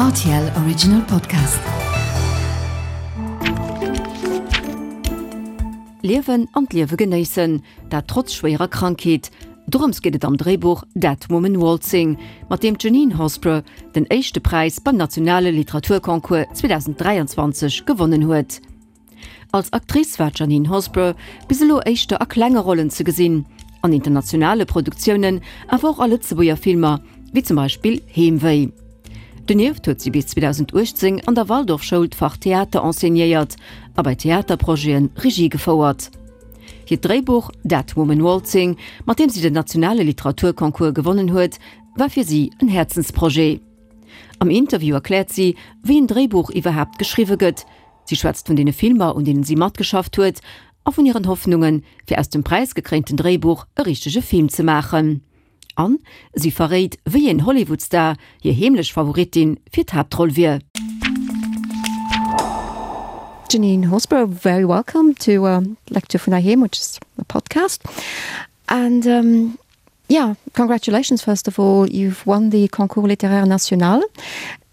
RTL Original Podcast. Liewen an d'Liewe genéissen, dat trotz schwéierer Krankheet. Dorëms geet et am Dréibuch Dead Woman Waltzing, mat deem d'Janine Horsburgh den éischte Präis beim nationale Literaturconcours 2023 gewonnen huet. Als Actrice war d'Janine Horsburgh bis elo éischter a klenge Rollen ze gesinn, an internationale Produktiounen, awer och a Lëtzebuerger Filmer, wéi zum Beispill Heemwéi. Donieft huet si bis 2018 an der Waldorfschoul d'Fach Theater enseignéiert a bei Theaterprojete Regie gefouert. Hiert Dréibuch Dead Woman Waltzing, mat deem si den nationale Literaturconcours gewonnen huet, war fir si en Häerzensprojet. Am Interview erkläert si, wéi en Dréibuch iwwerhaapt geschriwwe gëtt, Si schwätzt vun deene Filmer, un deenen si matgeschafft huet, a vun hiren Hoffnungen, fir aus dem präisgekréinten Dréibuch e richtege Film ze maachen. An si verréit, wéi een Hollywood-Star hir heemlech Favoritin fir d'Haaptroll wier. Janine Horsburgh, very welcome to uh, Lecture vun Heiheem, which is a podcast. And um, yeah, congratulations first of all, you've won the Concours Littéraire National.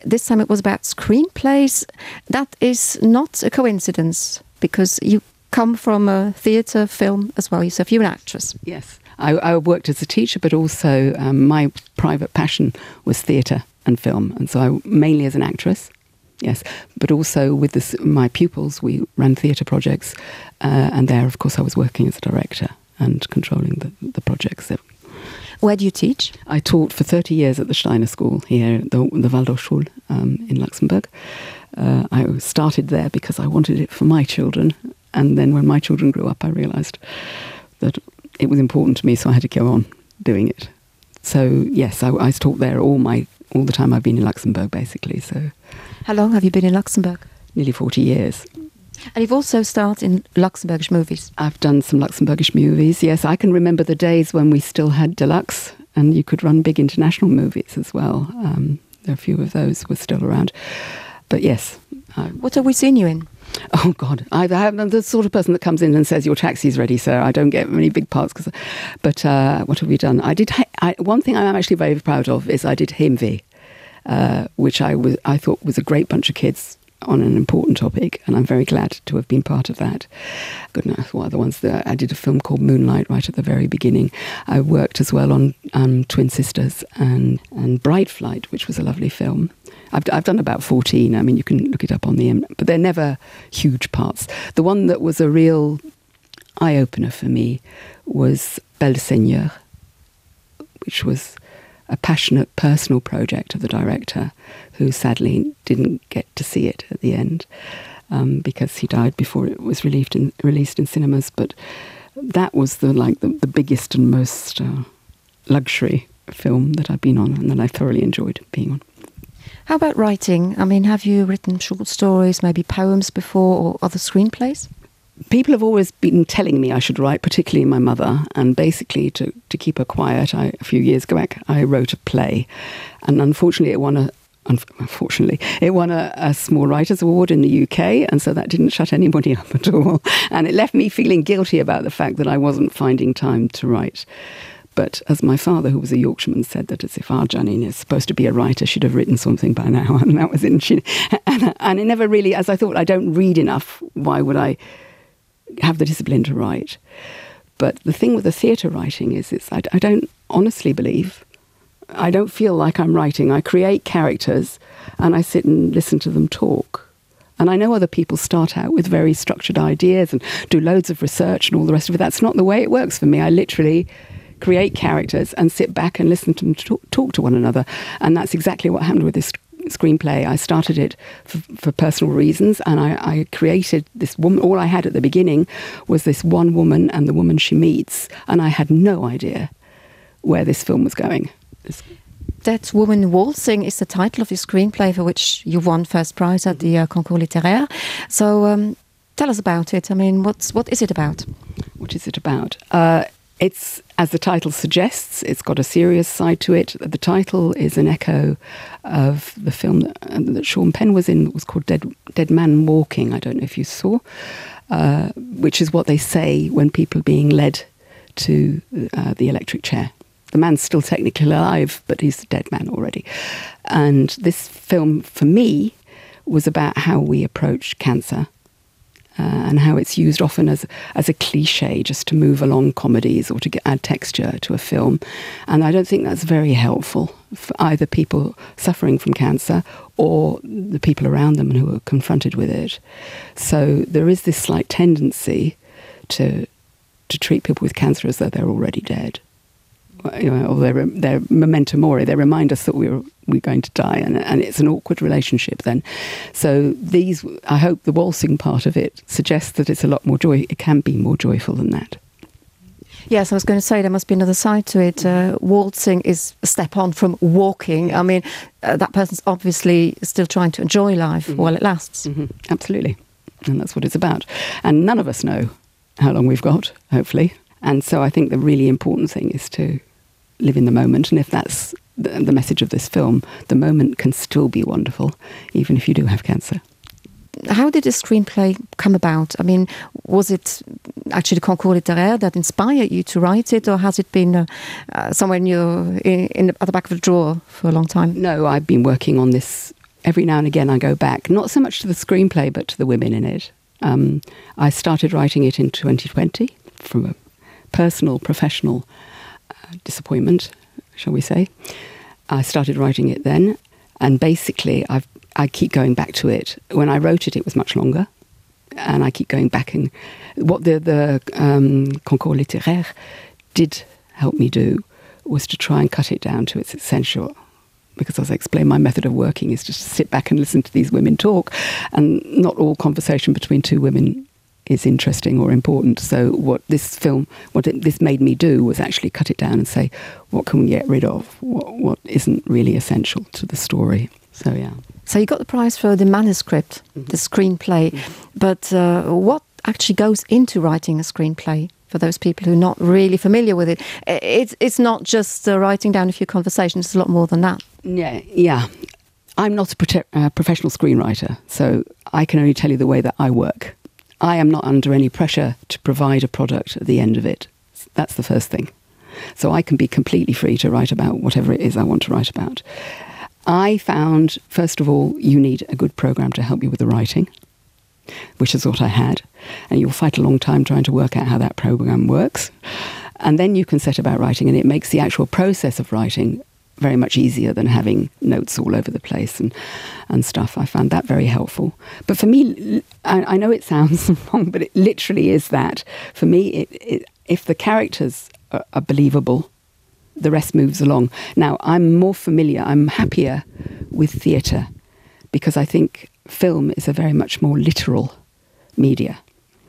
This time it was about screenplays. That is not a coincidence because you come from a theatre film as well yourself you're an actress. Yes, I, I worked as a teacher, but also um, my private passion was theatre and film, and so I mainly as an actress. Yes, but also with this, my pupils, we ran theatre projects, uh, and there, of course, I was working as a director and controlling the, the projects. That Where do you teach? I taught for 30 years at the Steiner School here, the, the Waldorfschule um, in Luxembourg. Uh, I started there because I wanted it for my children. And then when my children grew up, I realized that it was important to me, so I had to go on doing it. So yes, I, I taught there all my all the time I've been in Luxembourg basically. So how long have you been in Luxembourg? Nearly 40 years. And you've also starred in Luxembourgish movies. I've done some Luxembourgish movies. Yes, I can remember the days when we still had deluxe and you could run big international movies as well. Um, a few of those were still around. But yes. I, what have we seen you in? Oh God, I, I'm the sort of person that comes in and says your taxi's ready, sir. I don't get many big parts, cause, but uh, what have we done? I did I, one thing I'm actually very proud of is I did Himvi, uh, which I was I thought was a great bunch of kids on an important topic, and I'm very glad to have been part of that. Goodness, what other ones? That I did a film called Moonlight right at the very beginning. I worked as well on um, Twin Sisters and and Bride Flight, which was a lovely film. I've, I've done about 14. I mean, you can look it up on the, but they're never huge parts. The one that was a real eye opener for me was Belle Seigneur, which was a passionate personal project of the director who sadly didn't get to see it at the end um, because he died before it was relieved in, released in cinemas. But that was the like the, the biggest and most uh, luxury film that I've been on and that I thoroughly enjoyed being on. How about writing? I mean, have you written short stories, maybe poems before or other screenplays? People have always been telling me I should write, particularly my mother, and basically to, to keep her quiet, I, a few years back I wrote a play, and unfortunately it won a unfortunately it won a, a small writers award in the UK and so that didn't shut anybody up at all and it left me feeling guilty about the fact that I wasn't finding time to write. But as my father, who was a Yorkshireman, said that as if our Janine is supposed to be a writer, she'd have written something by now. And that was in she, and, and it never really, as I thought, I don't read enough. Why would I have the discipline to write? But the thing with the theatre writing is it's I, I don't honestly believe I don't feel like I'm writing. I create characters and I sit and listen to them talk. And I know other people start out with very structured ideas and do loads of research and all the rest of it. That's not the way it works for me. I literally create characters and sit back and listen to them talk, talk to one another. And that's exactly what happened with this screenplay. I started it for, for personal reasons and I, I created this woman. All I had at the beginning was this one woman and the woman she meets. And I had no idea where this film was going. This That Woman Waltzing is the title of your screenplay for which you won first prize at the uh, Concours Littéraire. So um, tell us about it. I mean, what's, what is it about? What is it about? Uh, it's as the title suggests, it's got a serious side to it. The title is an echo of the film that, uh, that Sean Penn was in, that was called Dead, Dead Man Walking. I don't know if you saw, uh, which is what they say when people are being led to uh, the electric chair. The man's still technically alive, but he's a dead man already. And this film, for me, was about how we approach cancer uh, and how it's used often as, as a cliche just to move along comedies or to get, add texture to a film. And I don't think that's very helpful for either people suffering from cancer or the people around them who are confronted with it. So there is this slight tendency to, to treat people with cancer as though they're already dead you know, or their, their memento mori, they remind us that we're, we're going to die, and, and it's an awkward relationship then. So these, I hope the waltzing part of it suggests that it's a lot more joy, it can be more joyful than that. Yes, I was going to say there must be another side to it. Uh, waltzing is a step on from walking. I mean, uh, that person's obviously still trying to enjoy life mm -hmm. while it lasts. Mm -hmm. Absolutely. And that's what it's about. And none of us know how long we've got, hopefully. And so I think the really important thing is to live in the moment. And if that's the, the message of this film, the moment can still be wonderful, even if you do have cancer. How did the screenplay come about? I mean, was it actually the Concours littéraire that inspired you to write it, or has it been uh, uh, somewhere in your, in, in the, at the back of the drawer for a long time? No, I've been working on this every now and again. I go back, not so much to the screenplay, but to the women in it. Um, I started writing it in 2020 from a personal, professional uh, disappointment, shall we say. I started writing it then, and basically I've, I keep going back to it. When I wrote it, it was much longer, and I keep going back. And what the, the um, Concours littéraire did help me do was to try and cut it down to its essential because as I explained, my method of working is just to sit back and listen to these women talk, and not all conversation between two women is interesting or important. So what this film, what it, this made me do was actually cut it down and say, what can we get rid of? What, what isn't really essential to the story? So yeah. So you got the prize for the manuscript, mm -hmm. the screenplay, mm -hmm. but uh, what actually goes into writing a screenplay? For those people who are not really familiar with it, it's, it's not just uh, writing down a few conversations, it's a lot more than that. Yeah, yeah. I'm not a uh, professional screenwriter, so I can only tell you the way that I work. I am not under any pressure to provide a product at the end of it. That's the first thing. So I can be completely free to write about whatever it is I want to write about. I found, first of all, you need a good program to help you with the writing, which is what I had. And you'll fight a long time trying to work out how that program works. And then you can set about writing, and it makes the actual process of writing very much easier than having notes all over the place and, and stuff. I found that very helpful. But for me, I, I know it sounds wrong, but it literally is that. For me, it, it, if the characters are, are believable, the rest moves along. Now, I'm more familiar, I'm happier with theatre because I think film is a very much more literal media.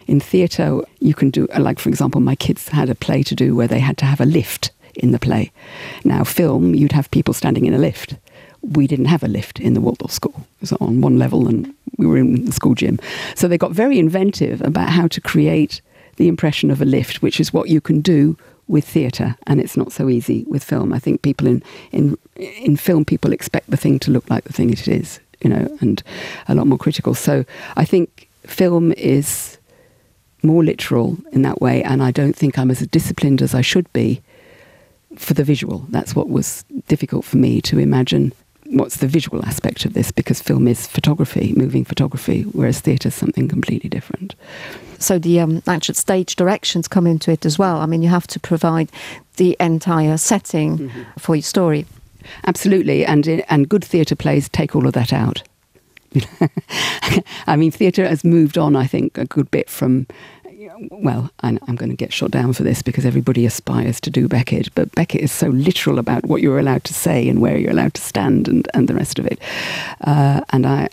In theatre, you can do, like, for example, my kids had a play to do where they had to have a lift in the play. Now, film, you'd have people standing in a lift. We didn't have a lift in the Waldorf School. It was on one level and we were in the school gym. So they got very inventive about how to create the impression of a lift, which is what you can do with theatre, and it's not so easy with film. I think people in, in, in film, people expect the thing to look like the thing it is, you know, and a lot more critical. So I think film is more literal in that way, and I don't think I'm as disciplined as I should be for the visual. That's what was difficult for me to imagine what's the visual aspect of this because film is photography, moving photography, whereas theatre is something completely different. So the um, actual stage directions come into it as well. I mean, you have to provide the entire setting mm -hmm. for your story. Absolutely, and, and good theatre plays take all of that out. I mean, theatre has moved on, I think, a good bit from well, I'm, I'm going to get shot down for this because everybody aspires to do Beckett, but Beckett is so literal about what you're allowed to say and where you're allowed to stand and, and the rest of it. Uh, and I,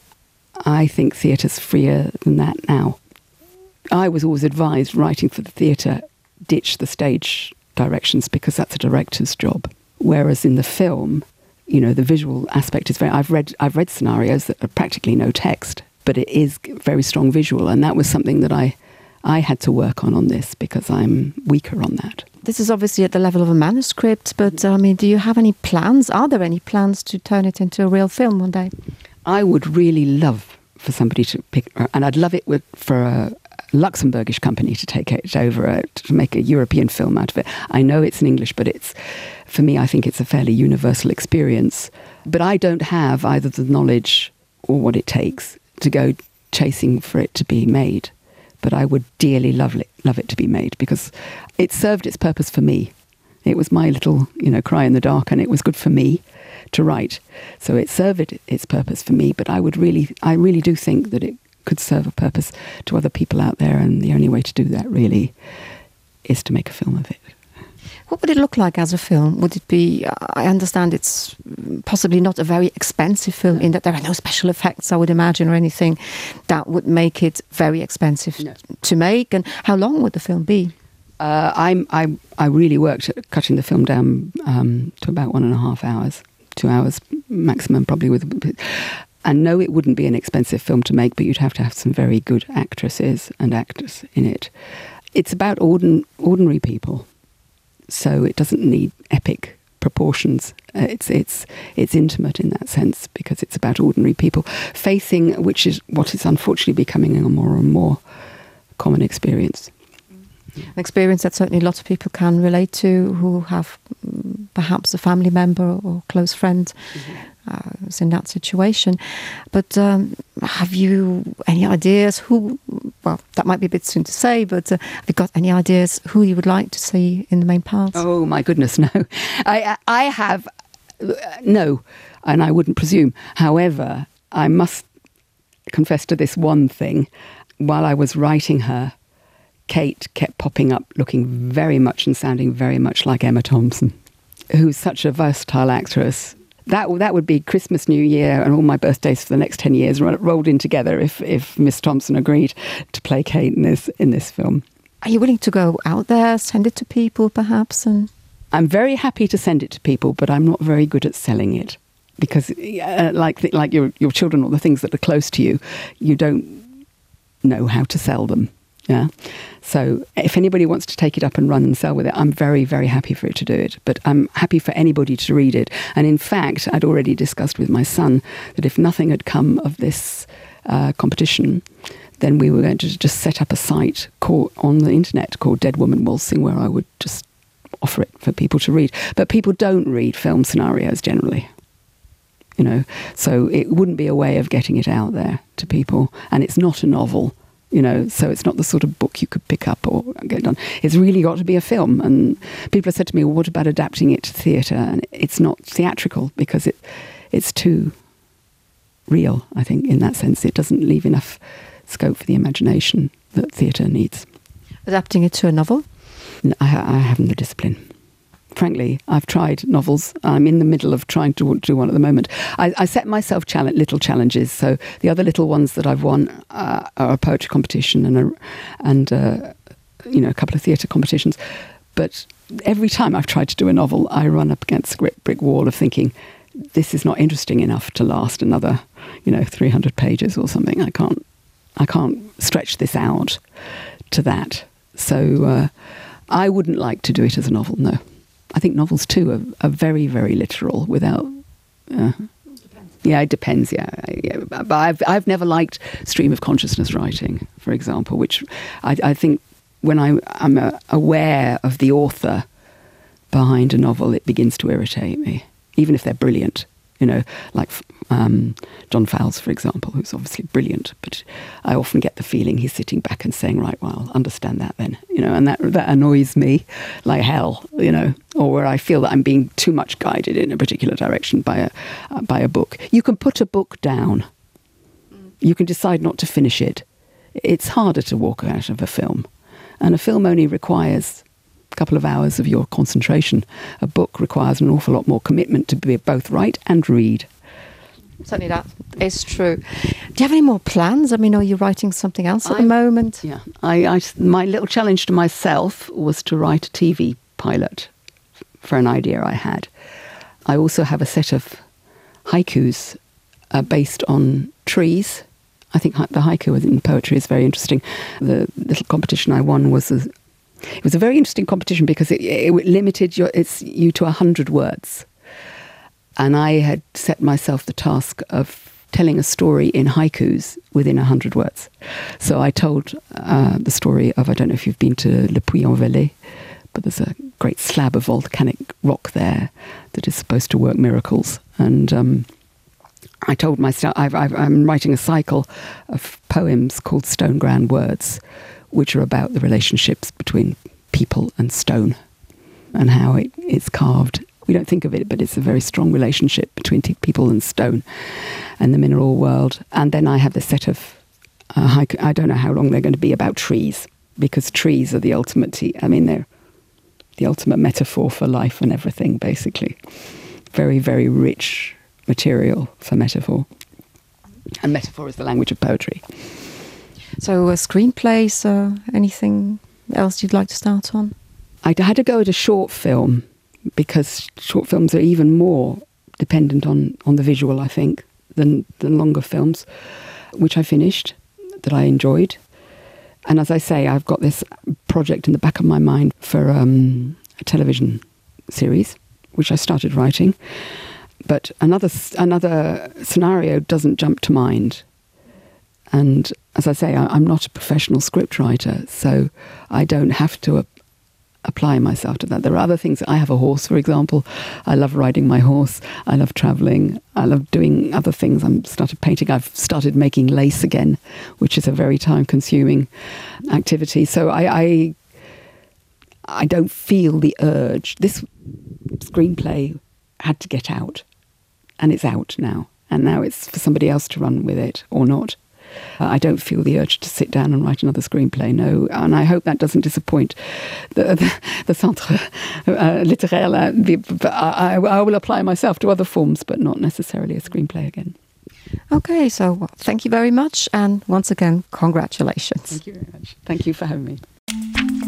I think theatre's freer than that now. I was always advised writing for the theatre, ditch the stage directions because that's a director's job. Whereas in the film, you know, the visual aspect is very, I've read, I've read scenarios that are practically no text, but it is very strong visual. And that was something that I, I had to work on on this because I'm weaker on that. This is obviously at the level of a manuscript, but I mean, do you have any plans? Are there any plans to turn it into a real film one day? I would really love for somebody to pick, and I'd love it with, for a, Luxembourgish company to take it over uh, to make a European film out of it. I know it's in English, but it's for me I think it's a fairly universal experience. But I don't have either the knowledge or what it takes to go chasing for it to be made. But I would dearly love it, love it to be made because it served its purpose for me. It was my little you know cry in the dark and it was good for me to write. So it served its purpose for me, but I would really I really do think that it could serve a purpose to other people out there and the only way to do that really is to make a film of it. What would it look like as a film? Would it be I understand it's possibly not a very expensive film in that there are no special effects, I would imagine or anything that would make it very expensive no. to make and how long would the film be? Uh, I'm, I, I really worked at cutting the film down um, to about one and a half hours, two hours maximum probably with and no it wouldn't be an expensive film to make, but you'd have to have some very good actresses and actors in it. It's about ordin ordinary people, so it doesn't need epic proportions. Uh, it's, it's, it's intimate in that sense because it's about ordinary people facing, which is what is unfortunately becoming a more and more common experience. An experience that certainly a lot of people can relate to who have mm, perhaps a family member or close friend mm -hmm. uh, in that situation. But um, have you any ideas who well that might be a bit soon to say, but uh, have you got any ideas who you would like to see in the main parts? Oh my goodness, no. I, I have uh, no, and I wouldn't presume. However, I must confess to this one thing. While I was writing her, Kate kept popping up looking very much and sounding very much like Emma Thompson, who's such a versatile actress. That, that would be Christmas, New Year and all my birthdays for the next 10 years rolled in together if, if Miss Thompson agreed to play Kate in this, in this film. Are you willing to go out there, send it to people perhaps? And I'm very happy to send it to people, but I'm not very good at selling it because uh, like, like your, your children or the things that are close to you, you don't know how to sell them. Yeah. So if anybody wants to take it up and run and sell with it, I'm very, very happy for it to do it. But I'm happy for anybody to read it. And in fact, I'd already discussed with my son that if nothing had come of this uh, competition, then we were going to just set up a site called, on the internet called Dead Woman Waltzing, where I would just offer it for people to read. But people don't read film scenarios generally. You know, so it wouldn't be a way of getting it out there to people. And it's not a novel you know so it's not the sort of book you could pick up or get done it's really got to be a film and people have said to me well, what about adapting it to theater and it's not theatrical because it it's too real I think in that sense it doesn't leave enough scope for the imagination that theater needs adapting it to a novel no, I, I haven't the discipline frankly I've tried novels I'm in the middle of trying to do one at the moment I, I set myself challenge little challenges so the other little ones that I've won uh, are a poetry competition and a and uh, you know a couple of theatre competitions but every time I've tried to do a novel I run up against a brick wall of thinking this is not interesting enough to last another you know 300 pages or something I can't I can't stretch this out to that so uh, I wouldn't like to do it as a novel no I think novels too are, are very very literal without uh, yeah it depends yeah, yeah but I've, I've never liked stream of consciousness writing for example which I, I think when I I'm uh, aware of the author behind a novel it begins to irritate me even if they're brilliant you know like um, John Fowles for example who's obviously brilliant but I often get the feeling he's sitting back and saying right well understand that then you know and that that annoys me like hell you know or where I feel that I'm being too much guided in a particular direction by a uh, by a book you can put a book down you can decide not to finish it it's harder to walk out of a film and a film only requires a couple of hours of your concentration a book requires an awful lot more commitment to be both write and read certainly that is true do you have any more plans I mean are you writing something else at I, the moment yeah I, I my little challenge to myself was to write a TV pilot for an idea I had I also have a set of haikus uh, based on trees I think the haiku in poetry is very interesting the little competition I won was a, it was a very interesting competition because it, it limited your it's you to 100 words and I had set myself the task of telling a story in haikus within 100 words. So I told uh, the story of I don't know if you've been to Le Puy-en-Velay, but there's a great slab of volcanic rock there that is supposed to work miracles. And um, I told myself I've, I've, I'm writing a cycle of poems called Stone Ground Words, which are about the relationships between people and stone and how it, it's carved. We don't think of it, but it's a very strong relationship between people and stone and the mineral world. And then I have this set of uh, I, I don't know how long they're going to be about trees because trees are the ultimate I mean they're the ultimate metaphor for life and everything basically very very rich material for metaphor and metaphor is the language of poetry so a screenplay so anything else you'd like to start on I had to go at a short film because short films are even more dependent on on the visual I think than than longer films which I finished that I enjoyed and as I say I've got this project in the back of my mind for um, a television series which I started writing but another another scenario doesn't jump to mind and as I say I, I'm not a professional script writer so I don't have to apply myself to that. There are other things. I have a horse, for example. I love riding my horse. I love traveling. I love doing other things. I'm started painting. I've started making lace again, which is a very time consuming activity. So I, I, I don't feel the urge. This screenplay had to get out and it's out now. And now it's for somebody else to run with it or not. Uh, I don't feel the urge to sit down and write another screenplay no and I hope that doesn't disappoint the, the, the centre uh, littéraire uh, I, I will apply myself to other forms but not necessarily a screenplay again. Okay, so well, thank you very much and once again congratulations. Thank you very much. Thank you for having me.